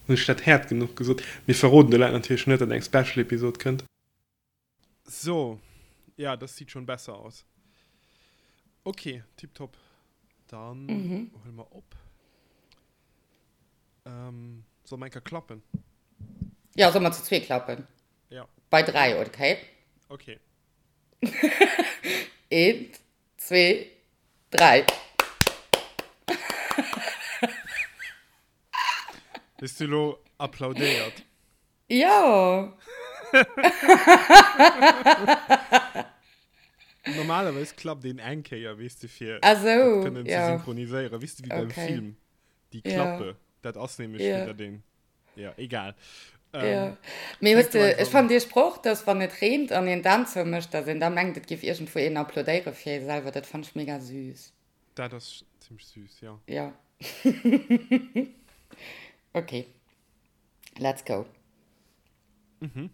Hunn ech dat haart genuch gesot? Mir verroden de Leit natierlech net, datt eng Special-Episod kënnt. So, ja, das sieht schon besser aus. Ok, tiptop. Dann huele mer op. Solle mer eng Kéier klappen? Jo, solle mer zu zwee klappen? Ja. Bei 3, okay? Okay. Eent, zwee, dräi. Hues du elo applaudéiert? Jo! Normalerweis klappt een eng Kéier, weess de, fir Ah sou, dat kënnen ze ja. synchroniséieren. Weess de, wéi beim Okay. Film, déi Ja. Klappe, dat ass nämlech fir Ja. datt een, ja, egal. Ja. Ähm, Mee hues fänk du de, einfach ech un. fannen dee Sproch, dass wann et reent an een d'Aan zoumécht, dass een da mengt, et géif iergendwou een applaudéiere fir ee selwer, dat fannen ech mega süß. Dat ass zimmlech süß, jo. Ja. Okay. Let's go. Mhm.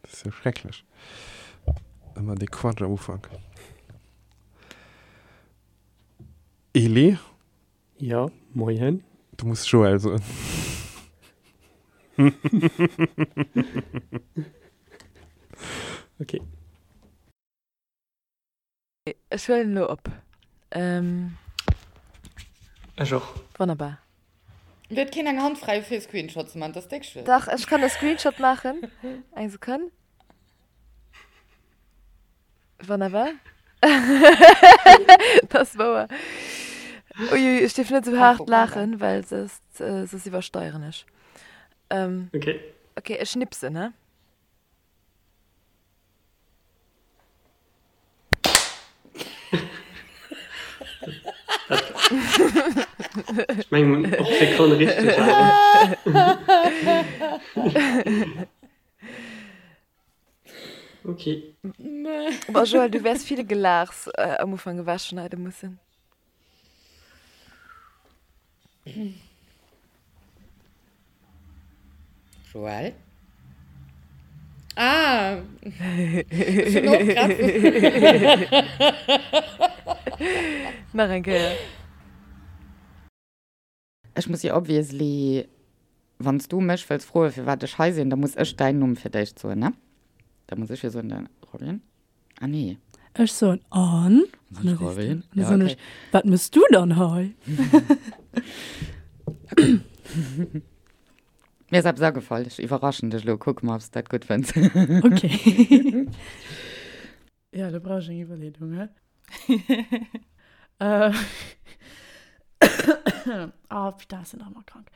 Dat ass jo schrecklech. Ëmmer dee Quatsch am Ufank. Eli? Ja, moien. Du muss Joël soen. Okay. Ech huelen elo op. Ech och. Wonnerbar. Huet keen eng Hand fräi fir e Screenshot ze man? Dat ass déck schwiereg. Dach, ech kann e Screenshot maachen. Eng Sekonn. Wonnerbar. Dat ass wouer. Uiui, ech dierf net esou haart laachen, well soss, soss iwwersteieren ech. Okay. Okay, ech schnipsen, he? Ech mengen op d'Sekonn richteg awer. Ok. Boah Joël, du wäers vill Gelaachs am Ufank ewechschneide mussen. Joël? Ah! Ech hunn och grad. Nach eng Kéier. Ech muss jo obviously, wann s du mech wëlls froen, firwat ech hei sinn, da muss ech däin Numm fir d'éischt soen, ne? Da muss ech jo soen, de Robin. Ah nee. Ech soen an, an da sees du, an da soen ech, wat mëss du dann hei? Mir ass eppes agefall, ech iwwerraschen dech elo, kucke mer, ob s de dat gutt fënns. Okay. Ja, do brauch ech eng Iwwerleedung, hä? Oh, putain, ech sinn nach ëmmer krank.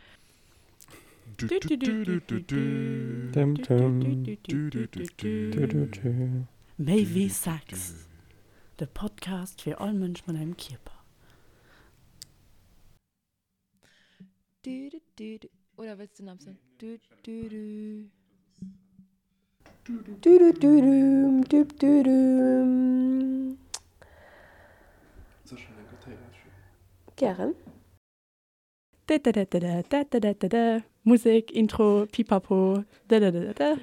Méi wéi Sex, de Podcast fir all Mënsch mat engem Kierper. Oder wëlls du nach eppes soen? Gären. Musek, Intro, Pipapo, dadadadada.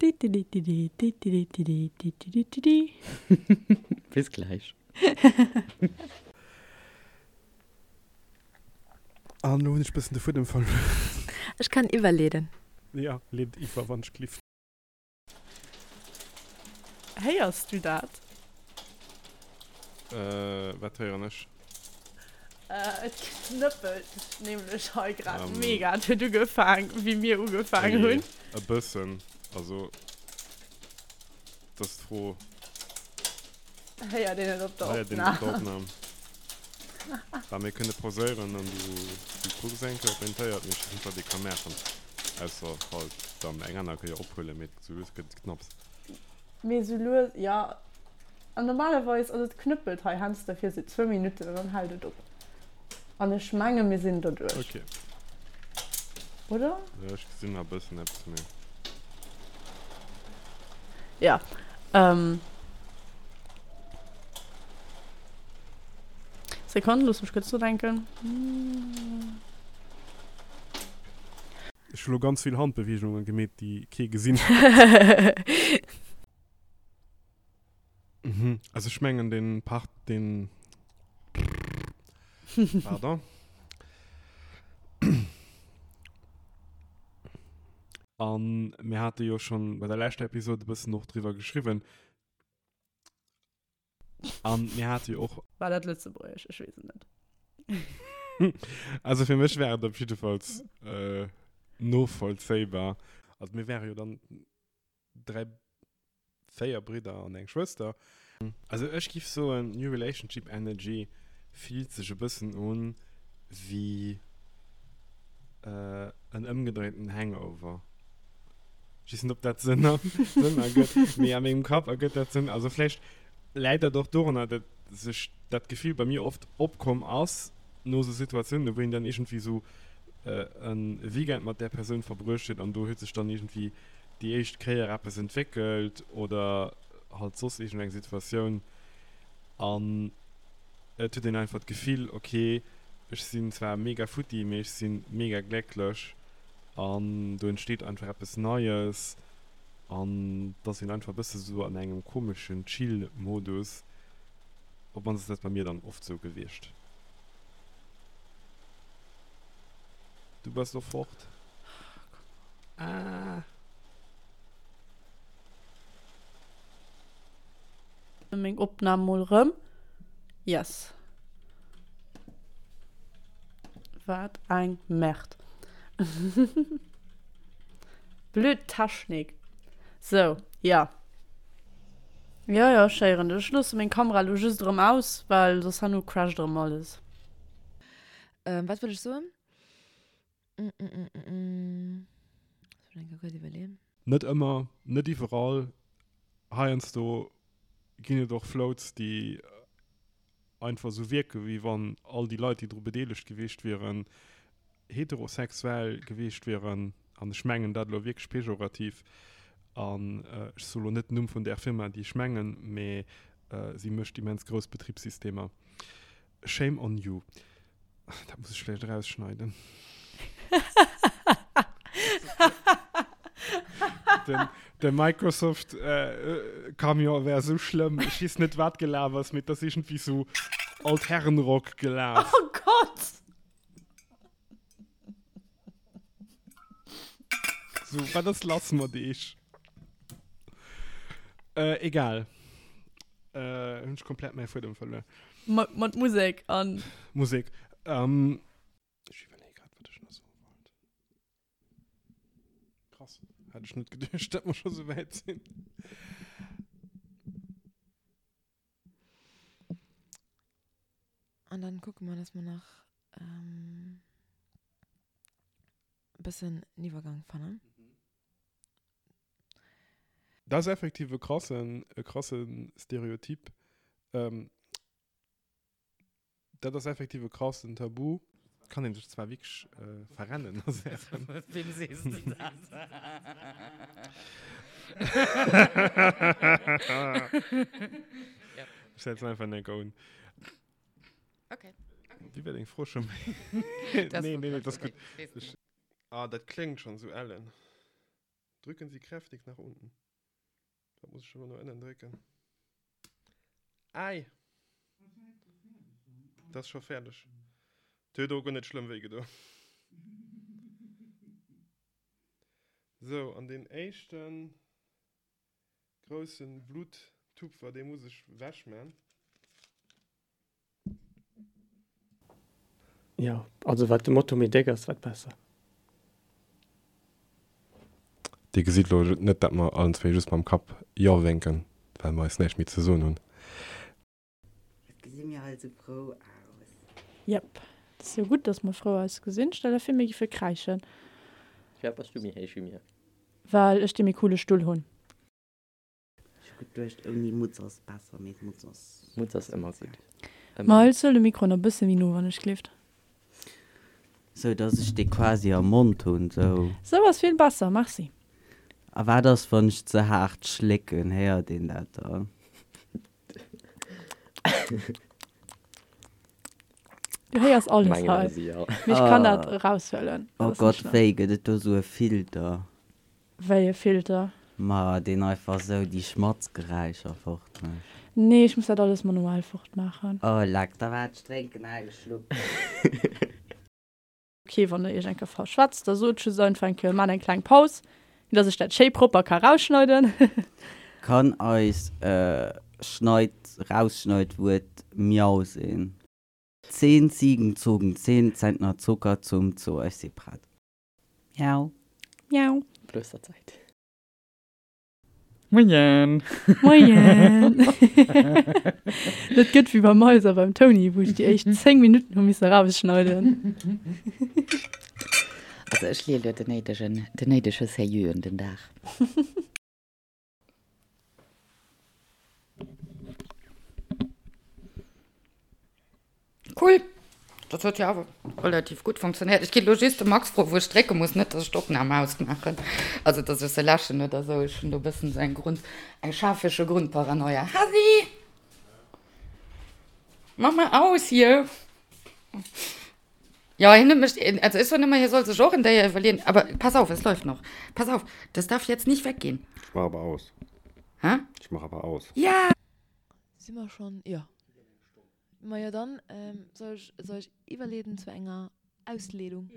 Didididididididididididi. Bis gläich. An elo hunn ech bëssen de Fuedem verluer. Ech kann iwwerleeden. Jo, leet iwwer, wann ech glift. Héiers du dat? Wat héieren ech? Et knëppelt nämlech hei grad mega. Et huet ugefaang, wéi mir ugefaang hunn. E bëssen. Also, et ass d'Fro. Héiert een et op der Héiert een et op der Opnam? Opnam? Bah, mir kënne pauséieren an du kucks eng Kéier, ob een et héiert. Mee ech weess net, wat ee ka maachen, ausser halt dann eng aner Kéier ophuelen. Mee sou lues gëtt et knapps. Mee sou lues, jo. An normalerweis, also et knëppelt hei heiansdo fir sou zwou Minutten an dann hält et op. An ech menge mir sinn doduerch. Ok. Oder? Jo, ech gesinn nach e bëssen eppes, mee. Ja. Ähm. Sekonn, looss mech kuerz nodenken. Ech hu lo ganz vill Handbeweegungen gemeet, déi kee gesinn huet. Mhm. Also ech mengen den Part den Pardon. A mir hate jo schonn bei der leschter Episode e bëssen och driwwer geschriwwen. A mir hate jo och. War dat Lëtzebuergesch? Ech weess et net. Also fir mech war et op jiddefalls novollzéibar. Also mir wäre jo dann 3, 4 Bridder an eng Schwëster. Also ech giff soen, New Relationship Energy fillt sech e bëssen un wéi en ëmgedréinten Hangover. Ech weess net op dat Sënn Sënn ergëtt, mee a mengem Kapp ergëtt dat Sënn. Also vläicht läit dat och dorunner, dat sech dat Gefill bei mir oft opkomm ass no esou Situatiounen, wou een dann iergendwéi esou e Weekend mat där Persoun verbruecht huet an do huet sech dann iergendwéi déi éischt Kéier eppes entwéckelt oder halt soss iergendeng Situatioun an et huet een einfach d'Gefill, ok, ech sinn zwar mega futti, mee ech si mega glécklech an do entsteet einfach eppes Neies an et ass een einfach e bësse sou an engem komeschen Chill-Modus. Op mannst ass dat bei mir dann oft sou gewiescht. Du bass lo fort. Ah. Meng Opnahm mol rëm. Yes. Wat eng Merde. Blöd Technik. Sou, ja. Jo, jo, ech héieren dech. Ech loosse meng Kamera lo just erëm aus, well soss herno crasht erëm alles. Wat wëll ech soen? Net ëmmer, net iwwerall. Heiansdo ginn et och Floats, déi einfach esou wierken, wéi wann all déi Leit, déi dru bedeelegt gewiescht wieren, heterosexuell gewiescht wieren. An ech mengen dat elo wierklech pejorativ. An ech soe lo net den Numm vun där Firma, déi ech mengen, mee si mécht immens grouss Betribssystemer. Shame on you. Dat muss ech vläicht erausschneiden. Den, de Microsoft äh, Camion wär sou schlëmm. Ech weess net, wat gelaf ass, mee et ass iergendwéi sou Altherrenrock gelaf. Oh Gott! So, wat ass lass mat eech? Äh, egal. Äh, hunn ech komplett mäi Fuedem verluer. Mat, mat Musek an. Musek. Ähm, ech iwwerleeë grad, wat ech nach soe wollt. Krass, hat ech net geduecht, datt mer scho sou wäit sinn. An dann kucke mer, dass mer nach ähm, e bëssen en Iwwergang fannen. Dat ass effektiv e krassen, e krasse Stereotyp. Ähm, dat ass effektiv e krassen Tabu. Kann een sech zwar wierklech verrennen a Saachen. Wem sees de dat? Ech setzen einfach eng Enker un. Okay. Wéi war deng Fro scho méi? Nee, nee, nee, dat ass gutt. Ah, dat kléngt schonn esou ellen. Drücken Sie kräftig nach unten. Wat muss ech elo no ënnen drécken? Ei! Dat ass scho fäerdeg. Et huet och guer net schlëmm wéi gedo. Sou, an deen éischten groussen Bluttupfer, dee muss ech wech man. Jo, also wat de Moto méi déck ass, wat besser. Dir gesitt elo net, dat mer allen zwéi just mam Kapp Jo wénken, well mer eis näischt méi ze soen hunn. Wat gesi mir all sou frou aus. Jep, et ass jo gutt, dass mer frou ausgesinn. Stell der vir, mir giffe kräischen. Firwat bass du méi héich wéi mir? Well ech dee méi coole Stull hunn. Ech hu geduecht ouni Mutz ass besser, mee d'Mutz ass. Mutz ass ëmmer gutt. Ma hëls de de Mikro nach bësse méi no wann ech gleeft. Sou dass ech dee quasi am Mond hunn, sou. Sou ass vill besser, merci. A wat ass wann ech ze haart schlécken, héiert een dat dann? Du héiers alles hei, mee ech kann dat eraushuelen. Oh Gott, wéi gëtt et do sou e Filter? Wéi e Filter? Ma deen einfach sou déi Schmatzgeräischer fort mécht. Nee, ech muss dat alles manuell fort maachen. Oh leck, da waart, ech drénken nach e Schluck. Ok, wann der iech eng Kéier verschwätzt, da sot just einfach eng Kéier, maacht eng kleng Paus. Dass ech dat schéi propper ka rausschneiden. Kann eis Schneid rausschneid Wuert Miau sinn? 10 Ziegen zogen 10 Zentner Zucker zum Zoo. Ech si prett. Miau. Miau. Klosterzäit. Moien! Moien! Dat gëtt wéi beim Mais a beim Tony, wou ech déi éischt 10 Minutten hu misse rausschneiden. Also ech leeë lo den néidegen, den néidege Sérieux un den Dag. Cool! Dat huet jo awer relativ gutt funktionéiert. Ech ginn elo just de Max froen, wou ech drécke muss, net dass ech d'Opnam ausmaachen, also dass ech se läschen oder esou. Ech hunn do e bëssen esou eng Grund, eng schafege Grundparanoia. Hasi! Mach mal aus hier! Jo, hien huet mech, also ech soen ëmmer, hie soll sech och en Déier iwwerleeën, aber pass auf, es läuft noch. Pass auf, das darf jetzt nicht weggehen. Ech mach awer aus. Hä? Ech mach awer aus. Ja! Si mer schonn? Jo. Majo dann soll ech soll ech iwwerleeden zu enger Ausleedung.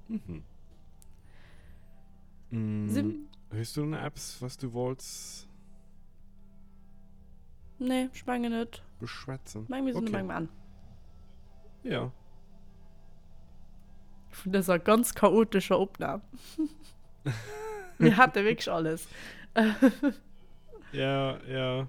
Mhm. Sim. Hues du nach eppes was du wollts? Nee, ech mengen net. Beschwätzen. Meng mir sinn um engem Enn. Ja. Vun dëser ganz chaotescher Opnam. Mir hate wierklech alles. Ja, ja.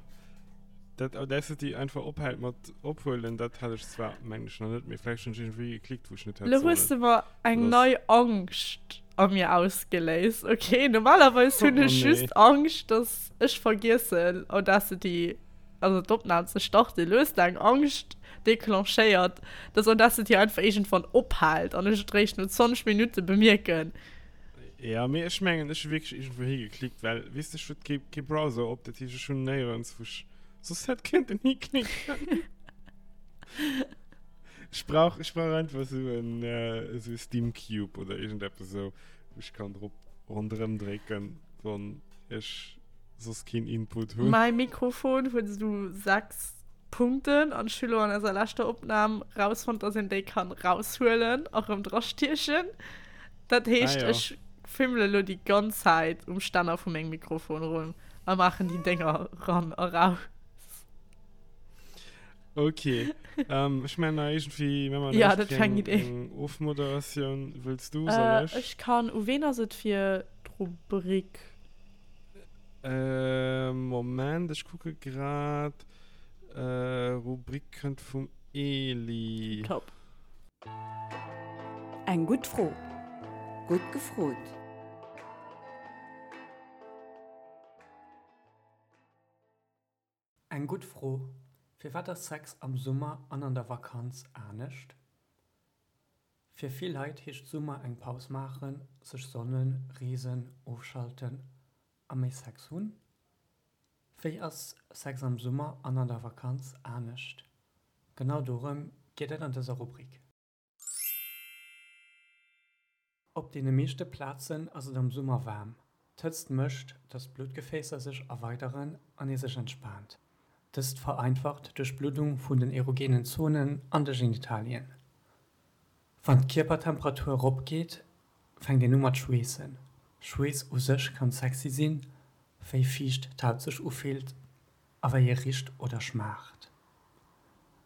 Dat Audacity einfach ophält mat ophuelen, dat hat ech zwar, mengen ech, nach net, mee vläicht hunn ech iergendwéi geklickt, wou ech net hätt Lo hues sollen. de mer eng nei Angscht a mir ausgeléist, okay? Normalerweis hunn Oh ech nee. just Angscht, dass ech vergiessen, Audacity, also d'Opnam ze starten. Lo hues de eng Angscht declenchéiert, dass Audacity einfach iergendwann ophält an ech et réischt no 20 Minutte bemierken. Ja, mee ech mengen, ech hu wierklech iergendwou higeklickt, well, weess de, ech huet kee, kee Browser op, dat heescht, ech hunn néierens, wou ech soss hätt kéinten hiklicken. Ech brauch, ech brauch einfach esou en, esou e Steam Cube oder iergendeppes esou, wou ech kann drop ronderëm drécken, wann ech soss keen Input hunn. Mäi Mikrofon huet esou 6 Punkten an ech hu lo an eiser leschter Opnam rausfonnt, dass een déi kann raushuelen a rëm drastiechen. Dat heescht, Ah, ja. ech fimmele lo déi ganz Zäit um Stänner vu mengem Mikrofon rum a maachen déi Dénger ran a raus. Okay. ähm, ech mein nach irgendwie, wenn man Ja, dat war eng Idee. eng Ofmoderatioun wëlls du, soll Äh, ech? ech kann, u ween ass et fir d'Rubrik? Äh, Moment, ech kucke grad. Äh, Rubrik kënnt vum Eli. Top. Eng gutt Fro. Gutt gefrot. Eng gutt Fro, Firwat ass Sex am Summer an an der Vakanz anescht? Fir vill Leit heescht Summer eng Paus maachen, sech sonnen, reesen, ofschalten a méi Sex hunn. Wéi ass Sex am Summer an an der Vakanz anescht? Genau dorëm geet et an dëser Rubrik. Op deene meeschte Plazen ass et am Summer waarm. D'Hëtzt mécht, dass d'Bluttgefäässer sech erweideren an ee sech entspaant. Dëst vereinfacht d'Duerchbluddung vun den erogenen Zonen an de Genitalien. Wann d'Kierpertemperatur erop geet, fänkt een u mat schweessen. Schweess u sech kann sexy sinn, wéi fiicht d'Haut sech ufillt a wéi e richt oder schmaacht.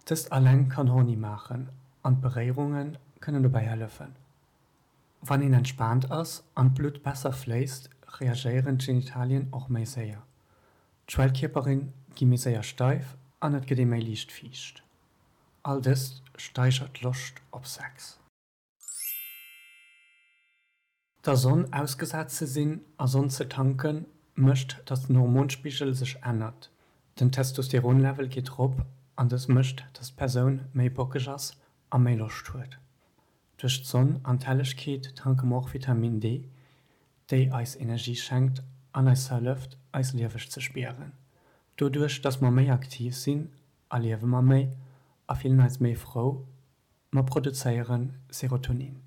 Dëst alleng kann horny maachen an d'Beréierunge kënnen dobäi hëllefen. Wann een entspaant ass an d'Blutt besser fléisst, reagéieren d'Genitalien och méi séier. D'Schwellkierpere gi méi séier steif an et gëtt ee méi liicht fiicht. All dëst steigert d'Loscht op Sex. Der Sonn ausgesat ze sinn a Sonn ze tanken, mécht dass den Hormonspigel sech ännert. Den Testosteronlevel geet rop an dës mécht dass d'Persoun méi bockeg ass a méi Loscht huet. Duerch d'Sonn an d'Hellegkeet tanke mer och Vitamin D, déi eis Energie schenkt an eis hëlleft eis lieweg ze spieren. Doduerch dass mer méi aktiv sinn, erliewe mer méi a fillen eis méi frou, mer produzéiere Serotonin.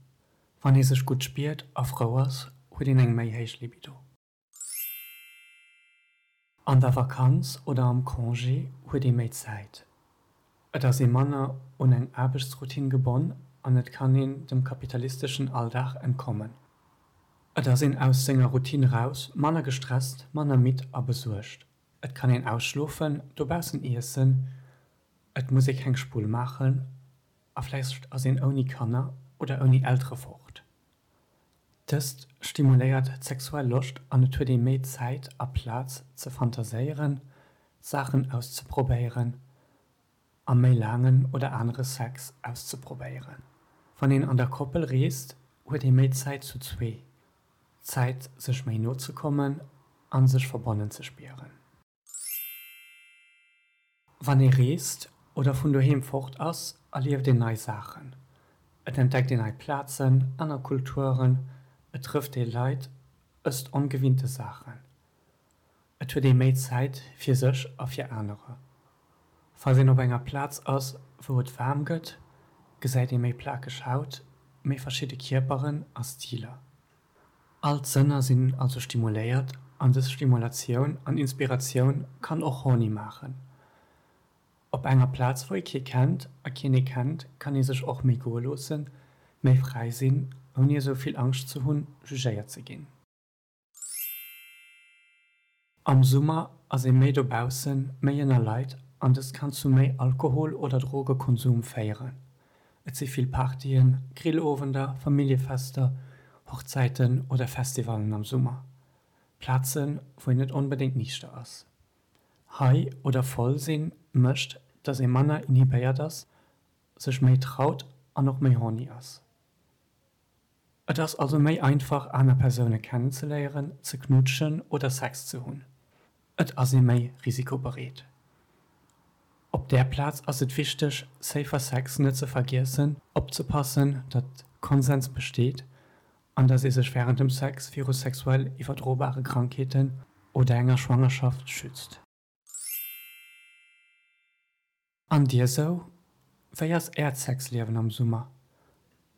Wann ee sech gutt spiert a frou ass, huet een eng méi héich Libido. An der Vakanz oder am Congé huet ee méi Zäit. Et ass ee manner un eng Aarbechtsroutine gebonn. an et kann een dem kapitalisteschen Alldag entkommen. Et ass een aus senger Routine raus, manner gestresst, manner midd a besuergt. Et kann een ausschlofen, dobaussen iessen, et muss ee keng Spull maachen a vläicht ass een ouni Kanner oder ouni Eltere fort. Dëst stimuléiert d'sexuell Loscht an et huet ee méi Zäit a Plaz ze fantaséieren, Saachen auszeprobéieren a méi laangen oder anere Sex auszeprobéieren. Wann een an der Koppel reest, huet ee méi Zäit zu zwee, Zäit sech méi no ze kommen a sech verbonnen ze spieren. Wann ee reest oder vun doheem fort ass, erlieft een nei Saachen. Et entdeckt een nei Plazen, aner Kulturen, et trëfft ee Leit, ësst ongewinnte Saachen. Et huet ee méi Zäit fir sech a fir anerer. Falls een op enger Plaz ass, wou et waarm gëtt, gesäit ee méi plakeg Haut, méi verschidde Kierperen a Stiler. All d'Sënner sinn also stimuléiert an dës Stimulatioun an Inspiratioun kann och horny maachen. Op enger Plaz wou ee kee kennt a keen ee kennt, kann ee sech och méi goe loossen, méi fräi sinn, ouni esou vill Angscht ze hunn, jugéiert ze ginn. Am Summer ass ee méi dobaussen, méi ënner Leit an dëst kann zu méi Alkohol oder Drogekonsum féieren. Et si vill Partyen, Grillowender, Familljefester, Hochzäiten oder Festivallen am Summer. Plazen, wou een net onbedéngt niichter ass. High oder voll sinn mécht, dass ee manner inhibéiert ass, sech méi traut an och méi horny ass. Et ass also méi einfach aner Persoune kennenzeléieren, ze knuutschen oder Sex ze hunn. Et ass ee méi risikobereet. Op där Plaz ass et wichteg safer Sex net ze vergiessen, opzepassen datt Konsens besteet an datt ee sech wärend dem Sex viru sexuell iwwerdrobare Krankheeten oder enger Schwangerschaft schützt. An dir sou? Wéi ass äert Sexliewen am Summer?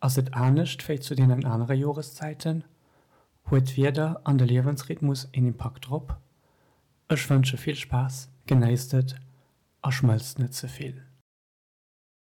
Ass et anescht wéi zu deenen anere Joreszäiten? Huet d'Wieder an de Liewensrhythmus een Impakt drop? Ech wënsche vill Spaass, genéisst et a schmëlzt net ze vill.